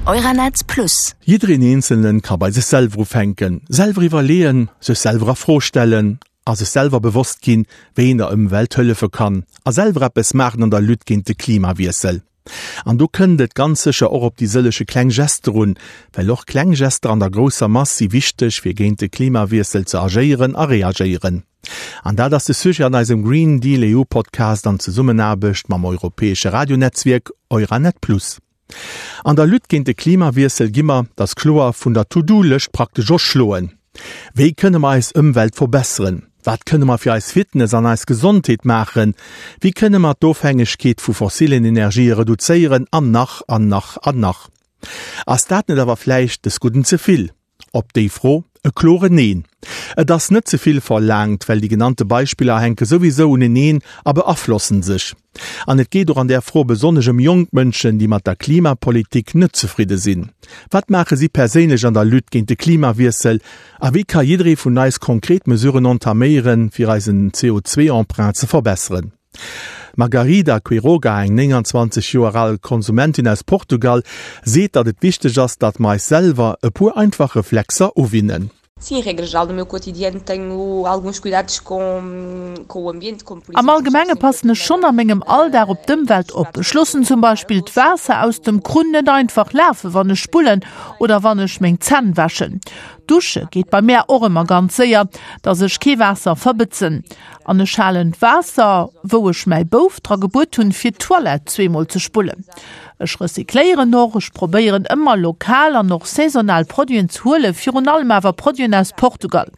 Euranet Plus. Jiddereen Eenzelnen ka bei sech selwer ufänken, selwer iwwerleeën, sech selwer a Fro stellen a sech selwer bewosst ginn, wéi een der Ëmwelt hëllefe kann a selwer eppes maachen an der Lutte géint de Klimawiessel. An do kënnt et ganz sécher och op déi sëllege kleng Gester un, well och kleng Gester an der grousser Mass si wichteg, fir géint de Klimawiessel ze agéieren a reagéieren. An dat ass de Sujet an eisem Green Deal EU Podcast an Zesummenaarbecht mam europäesche Radionetzwierk Euranet Plus. An der Lutte géint de Klimawiessel gi mer, dat ass kloer, vun der To-Do-Lëscht praktesch erschloen. Wéi kënne mer eis Ëmwelt verbesseren? Wat kënne mer fir eis Fitness an eis Gesondheet maachen? Wéi kënne mer d'Ofhängegkeet vu fossilen Energië reduzéieren? An nach an nach an nach. Ass dat net awer vläicht des Gudden ze vill? Op déi Fro e kloren Neen. Et ass net ze vill verlaangt, well déi genannte Beispiller hänke souwisou uneneen a beaflossen sech. An et geet och an där Fro besonnesch ëm jonk Mënschen, déi mat der Klimapolitik net zefridde sinn. Wat maache si perséinlech an der Lutte géint de Klimawiessel a wéi ka jidderee vun eis konkret Mesuren entaméieren, fir eisen CO2-Emprunt ze verbesseren? D'Margarida Quiroga, eng 29 Joer al Konsumentin aus Portugal, seet, datt et wichteg ass, datt mer eis selwer e puer einfach Reflexer uwinnen. Sim, em regra geral no meu cotidiano tenho alguns cuidados com com o ambiente, como por Am exemplo Allgemenge passen ech schonn a mengem Alldag op d'Ëmwelt op. Ech loossen zum Beispill d'Waasser aus dem Krunn net einfach lafen, wann ech spullen oder wann ech meng Zänn wäschen. Dusche geet bei mär och ëmmer ganz séier, dass ech kee Waasser verbëtzen. An ech halen d'Waasser, wou ech mäi Bouf dra gebuet hunn, fir d'Toilette zweemol ze spullen. Ech recycléieren och. Ech probéieren ëmmer lokal an och saisonal Produiten ze huelen, virun allem awer Produiten aus Portugal.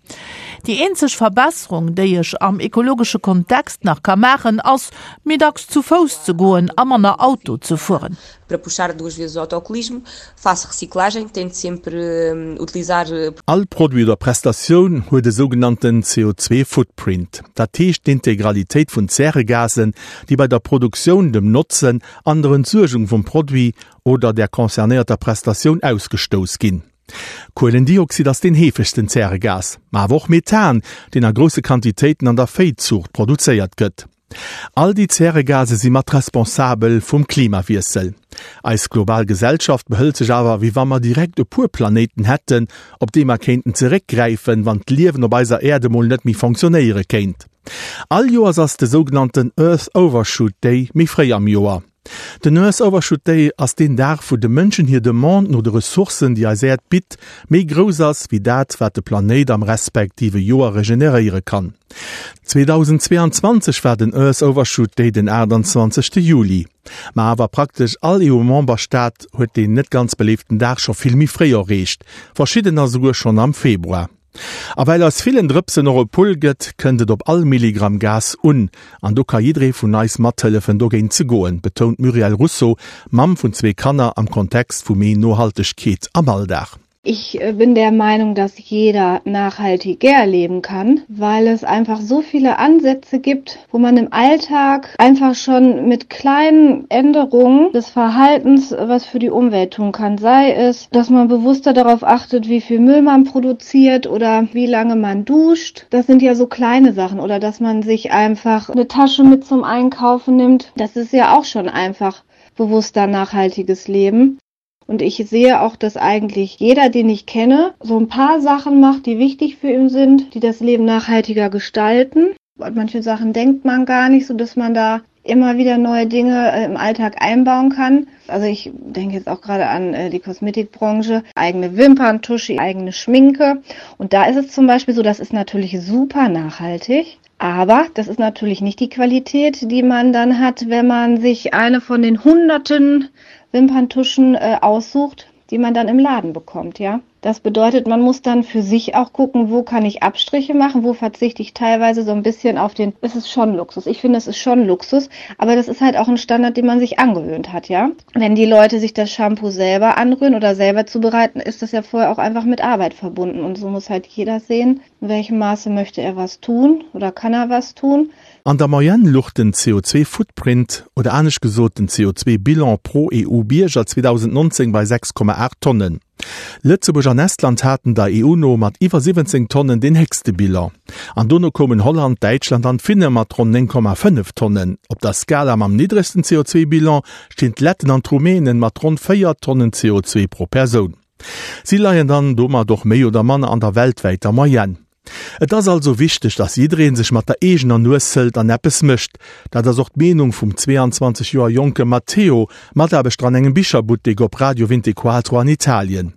Déi eenzeg Verbesserung, déi ech am ekologesche Kontext nach ka maachen, ass, méi dacks zu Fouss ze goen a manner Auto ze fueren. Para puxar duas vezes o autocolismo, faço reciclagem, tento sempre utilizar. All Produit oder Prestatioun huet e sougenannten CO2-Footprint, dat heescht d'Integralitéit vun Zäregasen, déi bei der Produktioun, dem Notzen an der Entsuergung vum Produit oder der concernéierter Prestatioun ausgestouss ginn. Kuelendioxid ass deen heefegsten Zäregas, ma awer och Methan, deen a grousse Quantitéiten an der Véizuucht produzéiert gëtt. All déi Zäregase si mat responsabel vum Klimawiessel. Eis global Gesellschaft behëlt sech awer, wéi wa mer direkt e puer Planéiten hätten, op déi mer kéinten zeréckgräifen, wann d'Liewen op eiser Äerd emol net méi fonctionnéiere kéint. All Joers ass de sougenannten Earth Overshoot Day méi fréi am Joer. Den Earth Overshoot Day ass deen Dag, wou de Mënschen hir Demande no de Ressourcen, déi eis Äerd bitt, méi grouss ass, wéi dat, wat de Planéit am respektive Joer regeneréiere kann. 2022 war den Earth Overshoot Day den 28. Juli. Ma awer praktesch all EU-Memberstaat huet deen net ganz beléiften Dag scho vill méi fréi erreecht, verschiddener souguer schonn am Februar. A well aus villen Drëpsen och e Pull gëtt, kënnt et op all Milligramm Gas un. An do ka jidderee vun eis mathëllefen dogéint ze goen, betount d'Muriel Russo, Mamm vun zwee Kanner, am Kontext vu méi Nohaltegkeet am Alldag. Ich bin der Meinung, dass jeder nachhaltiger leben kann, weil es einfach so viele Ansätze gibt, wo man im Alltag einfach schon mit kleinen Änderungen des Verhaltens was für die Umwelt tun kann. Sei es, dass man bewusster darauf achtet, wie viel Müll man produziert oder wie lange man duscht. Das sind ja so kleine Sachen oder dass man sich einfach eine Tasche mit zum Einkaufen nimmt. Das ist ja auch schon einfach bewusster nachhaltiges Leben. Und ich sehe auch, dass eigentlich jeder, den ich kenne, so ein paar Sachen macht, die wichtig für ihn sind, die das Leben nachhaltiger gestalten. An manche Sachen denkt man gar nicht, so dass man da immer wieder neue Dinge äh, im Alltag einbauen kann. Also ich denke jetzt auch gerade an äh, die Kosmetikbranche, eigene Wimperntusche, eigene Schminke. Und da ist es zum Beispiel so, das ist natürlich super nachhaltig. Aber das ist natürlich nicht die Qualität, die man dann hat, wenn man sich eine von den hunderten Wimperntuschen äh, aussucht, die man dann im Laden bekommt, ja. Das bedeutet, man muss dann für sich auch gucken, wo kann ich Abstriche machen, wo verzichte ich teilweise so ein bisschen auf den, es ist schon Luxus. Ich finde, es ist schon Luxus, aber das ist halt auch ein Standard, den man sich angewöhnt hat, ja. Wenn die Leute sich das Shampoo selber anrühren oder selber zubereiten, ist das ja vorher auch einfach mit Arbeit verbunden und so muss halt jeder sehen, in welchem Maße möchte er was tun oder kann er was tun. An der Moyenne luch den CO2-Footprint, oder anescht gesot den CO2-Bilan pro EU-Bierger 2019 bei 6,8 Tonnen. Lëtzebuerg an Estland haten der EU no mat iwwer 17 Tonnen deen héchste Bilan. An dono koumen Holland, Däitschland an d'Finne mat ronn 9,5 Tonnen. Op der Skala mam niddregsten CO2-Bilan stinn d'Letten an d'Rumänen mat ronn 4 Tonnen CO2 pro Persoun. Si leien dann domat och méi oder manner an der weltwäiter Moyenne. Et ass also wichteg, dass jidderee sech mat der eegener Nues hëlt an eppes mécht. Dat ass och d'Meenung vum 22 Joer jonke Matteo, Mataarbechter an engem Bicherbuttek op Radio Vintequatro an Italien.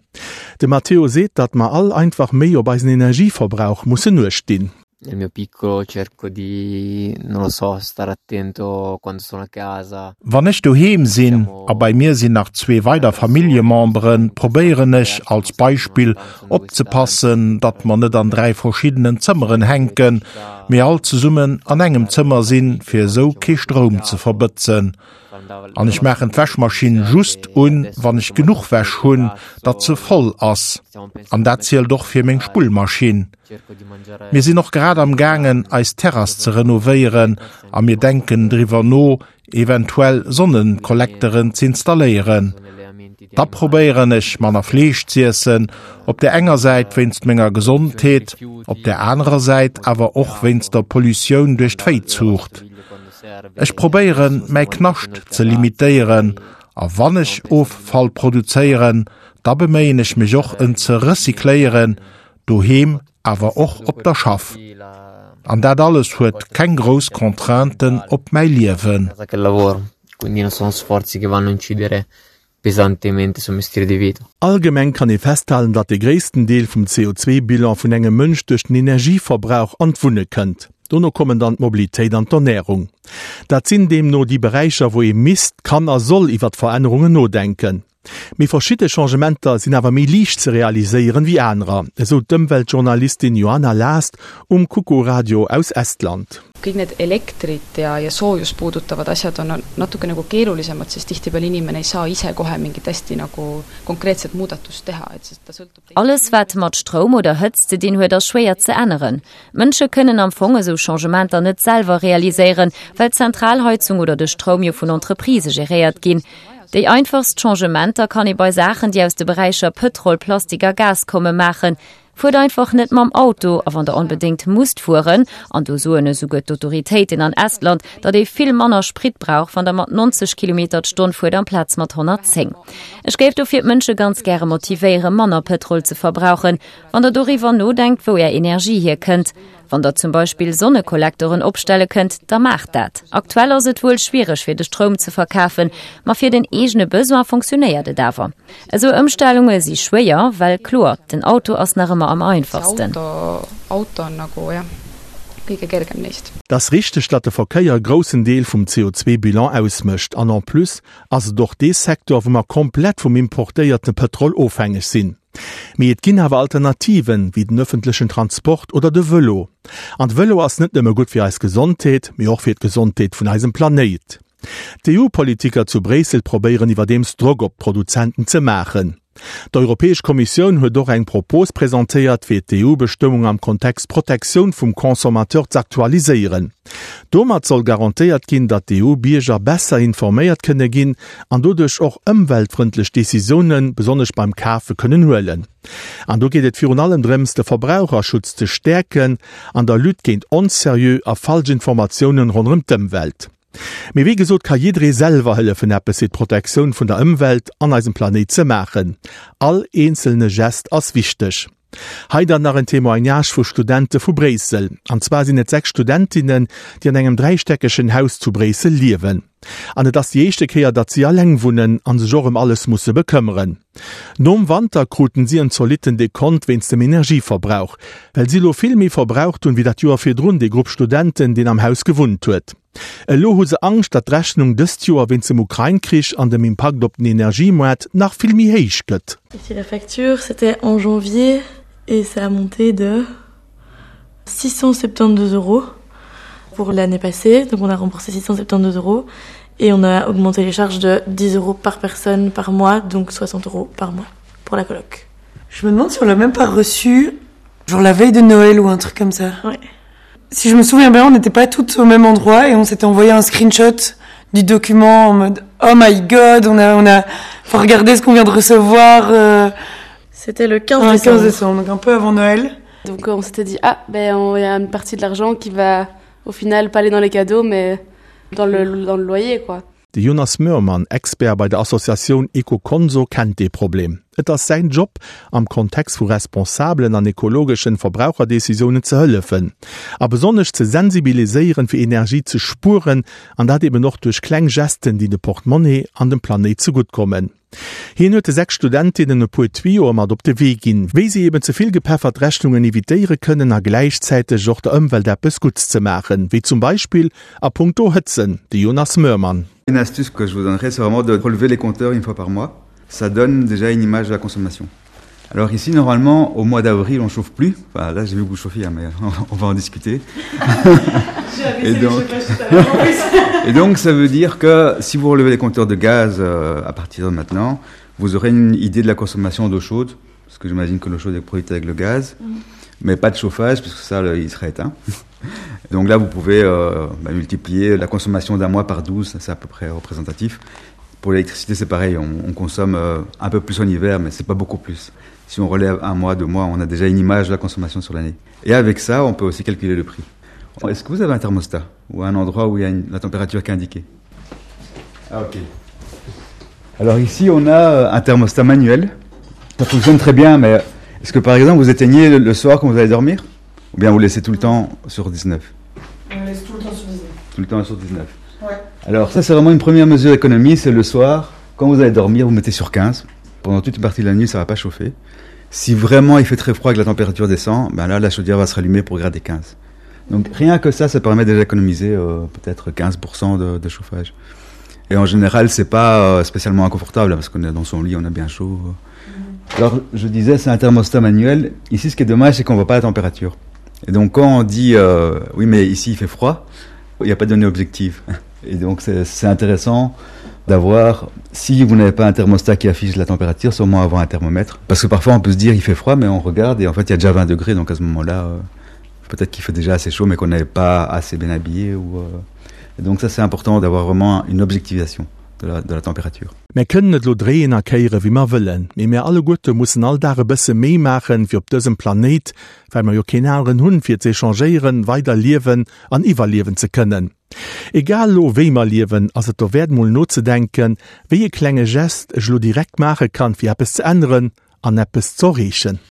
De Matteo seet, datt mer all einfach méi op eisen Energieverbrauch mussen uecht dinn. Nel mio piccolo cerco di, non lo so, stare attento quando sono a casa. Wann ech doheem sinn, a bei mir sinn nach zwee weider Familljememberen, probéieren ech, als Beispill, opzepassen, datt mer net an 3 verschiddenen Zëmmeren hänken, mee all zesummen an engem Zëmmer sinn, fir esou kee Stroum ze verbëtzen. An ech maachen d'Wäschmaschinn just un, wann ech genuch Wäsch hunn, datt se voll ass. An dat zielt och fir meng Spullmaschinn. Mir sinn och grad am gaangen, eis Terrass ze renovéieren a mir denken driwwer no, eventuell Sonnenkollekteren z'installéieren. Da probéieren ech manner Fleesch z'iessen, op der enger Säit wéinst menger Gesondheet, op der anerer Säit awer och wéinst der Pollutioun duerch d'Véizuucht. Ech probéieren mäi Knascht ze limitéieren a wann ech Offall produzéieren, da beméien ech mech och en ze recycléieren, doheem awer och op der Schaff. An dat alles huet keng grouss Contrainten op mäi Liewen. Allgemeng kann ee festhalen, datt de gréissten Deel vum CO2-Bilan vun engem Mënsch duerch den Energieverbrauch an d'Wunne kënnt. Dono kommen dann d'Mobilitéit an d'Ernärung. Dat sinn deemno déi Beräicher, wou ee misst, kann a soll iwwert Verännerungen nodenken. Mee verschidde Changementer sinn awer méi liicht ze realiséieren wéi anerer, esou d'Ëmweltjournalistin Johanna Last um Kuku Radio aus Estland. Kõik need elektrit ja, ja soojust puudutavad asjad on natuke nagu keerulisemad, sest tihtipeale inimene ei saa ise kohe mingit hästi nagu konkreetset muudatust teha, et sest ta sõltub Alles wat mat Stroum oder Hëtzt ze dinn huet, ass schwéier ze änneren. D'Mënsche kënnen am Fong esou Changementer net selwer realiséieren, well d'Zentralheizung oder de Stroum jo vun Entreprisë geréiert ginn. Déi einfachst Changementer kann ee bei Saachen, déi aus de Beräicher Pëtrol, Plastik a Gas kommen, maachen. Fuert einfach net mam Auto a wann der onbedéngt musst fueren, an do soen esouguer d'Autoritéiten an Estland, datt ee vill manner Sprit brauch, wann der mat 90 Kilometer d'Stonn fuert amplaz mat 110. Ech géif dofir d'Mënsche ganz gäre motivéieren, manner Pëtrol ze verbrauchen. Wann der doriwwer nodenkt, wou är Energie hierkënnt, Wann der zum Beispill Sonnekollektoren opstelle kënnt, da maacht dat. Aktuell ass et wuel schwiereg fir de Stroum ze verkafen, ma fir den eegene Besoin funktionéiert et awer. Esou Ëmstellunge si schwéier, well kloer, den Auto ass nach ëmmer am einfachsten. Et ass richteg, datt de Verkéier e groussen Deel vum CO2-Bilan ausmécht. An en plus ass et och dee Secteur, wou mer komplett vum importéierte Pëtrol ofhängeg sinn. Mee et ginn awer Alternativen, wéi den ëffentlechen Transport oder de Vëlo. An de Vëlo ass net nëmme gutt fir eis Gesondheet, mee och fir d'Gesondheet vun eisem Planéit. D'EU-Politiker zu Bréissel probéieren iwwerdeems Drock op d'Produzenten ze maachen. D'Europäesch Kommissioun huet och eng Propos presentéiert, fir d'EU-Bestëmmung am Kontext Protektioun vum Consommateur z'aktualiséieren. Domat soll garantéiert ginn, datt d'EU-Bierger besser informéiert kënne ginn an doduerch och ëmweltfrëndlech Decisiounen, besonnesch beim Kafe, kënnen huelen. An do geet et virun allem drëms, de Verbraucherschutz ze stäerken an der Lutte géint onseriö a falsch Informatiounen ronderëm d'Ëmwelt. Mee wéi gesot ka jidderee selwer hëllefen eppes fir d'Protektioun vun der Ëmwelt an eisem Planéit ze maachen. All eenzelne Gest ass wichteg. Hei dann nach en Témoignage vu Studente vu Bréissel. An zwar sinn et 6 Studentinnen, déi an engem dräistäckegen Haus zu Bréissel liewen. An et ass déi éischte Kéier, datt si alleng wunnen an sech och ëm alles musse bekëmmeren. Nom Wanter kruten si en zolitten Dekont wéinst dem Energieverbrauch, well si elo vill méi verbraucht hunn, wéi dat Joer virdrun dee Grupp Studenten, deen am Haus gewunnt huet. Elo hu se Angscht, datt d'Rechnung dëst Joer wéinst dem Ukrain-Krich an dem Impakt op den Energiemoart nach vill méi héich gëtt. Ici la facture, c'était en janvier et ça a monté de 672 euros pour l'année passée, donc on a remboursé 672 euros et on a augmenté les charges de 10 euros par personne par mois, donc 60 euros par mois pour la coloc. Je me demande si on l'a même pas reçu genre la veille de Noël ou un truc comme ça. Ouais. Si je me souviens bien, on n'était pas toutes au même endroit et on s'était envoyé un screenshot du document en mode oh my god, on a on a faut regarder ce qu'on vient de recevoir. Euh, C'était le 15 décembre. 15 décembre, donc un peu avant Noël. Donc on s'était dit ah ben il y a une partie de l'argent qui va au final pas aller dans les cadeaux mais dans le, dans le loyer quoi. De Jonas Möhrmann, Expert bei der Associatioun Ecoconso, kennt dee Problem. Et ass säin Job, am Kontext vu responsabelen an ekologeschen Verbraucherdecisiounen ze hëllefen a besonnesch ze sensibiliséieren, fir Energie ze spueren, an dat eben och duerch kleng Gesten, déi de Portemonnaie an dem Planéit zegutt kommen. Hien huet de 6 Studentinnen e puer Tuyoe mat op de Wee ginn, wéi si eben ze vill gepeffert Rechnungen evitéiere kënnen a gläichzäiteg och der Ëmwelt eppes Gutts ze maachen, wéi zum Beispill a puncto Hëtzen. De Jonas Möhrmann. Une astuce que je vous donnerai, c'est vraiment de relever les compteurs une fois par mois. Ça donne déjà une image de la consommation. Alors ici, normalement, au mois d'avril, on chauffe plus. Enfin, là, j'ai vu que vous chauffiez, mais on va en discuter. Et donc... Et donc, ça veut dire que si vous relevez les compteurs de gaz euh, à partir de maintenant, vous aurez une idée de la consommation d'eau chaude, parce que j'imagine que l'eau chaude est produite avec le gaz, mmh. mais pas de chauffage, puisque ça, le, il serait éteint. Donc là, vous pouvez euh, bah, multiplier la consommation d'un mois par 12, c'est à peu près représentatif. Pour l'électricité, c'est pareil, on, on consomme euh, un peu plus en hiver, mais c'est pas beaucoup plus. Si on relève un mois, deux mois, on a déjà une image de la consommation sur l'année. Et avec ça, on peut aussi calculer le prix. Est-ce que vous avez un thermostat ou un endroit où il y a une, la température qui est indiquée ah, ok. Alors ici, on a euh, un thermostat manuel. Ça fonctionne très bien, mais est-ce que par exemple, vous éteignez le, le soir quand vous allez dormir Ou bien vous laissez tout le temps sur 19 On laisse tout le temps sur 19. Tout le temps sur 19. Ouais. Alors ça, c'est vraiment une première mesure d'économie, c'est le soir, quand vous allez dormir, vous mettez sur 15. Pendant toute une partie de la nuit, ça va pas chauffer. Si vraiment il fait très froid et que la température descend, ben là, la chaudière va se rallumer pour grader 15. Donc rien que ça, ça permet déjà d'économiser euh, peut-être 15% de, de chauffage. Et en général, c'est pas euh, spécialement inconfortable parce qu'on est dans son lit, on a bien chaud. Mmh. Alors je disais, c'est un thermostat manuel. Ici, ce qui est dommage, c'est qu'on voit pas la température. Et donc quand on dit euh, oui, mais ici il fait froid, il n'y a pas de données objectives. Et donc c'est intéressant d'avoir, si vous n'avez pas un thermostat qui affiche la température, sûrement avoir un thermomètre. Parce que parfois on peut se dire il fait froid, mais on regarde et en fait il y a déjà 20 degrés, donc à ce moment-là, euh, peut-être qu'il fait déjà assez chaud, mais qu'on n'est pas assez bien habillé. Ou, euh... Et donc ça c'est important d'avoir vraiment une objectivation de la, de la température. Mär kënnen et lo dréien a kéiere wéi mer wëllen, mee mär alleguerte mussen all Dag e bësse méi maachen, fir op dësem Planéit, well mer jo keen aneren hunn, fir z'échangéieren, weider liewen an iwwerliewen ze kënnen. Egal lo wéi mer liewen, ass et dowäert mol nozedenken, wéi e klenge Gest ech lo direkt maache kann, fir eppes ze änneren an eppes z'erreechen.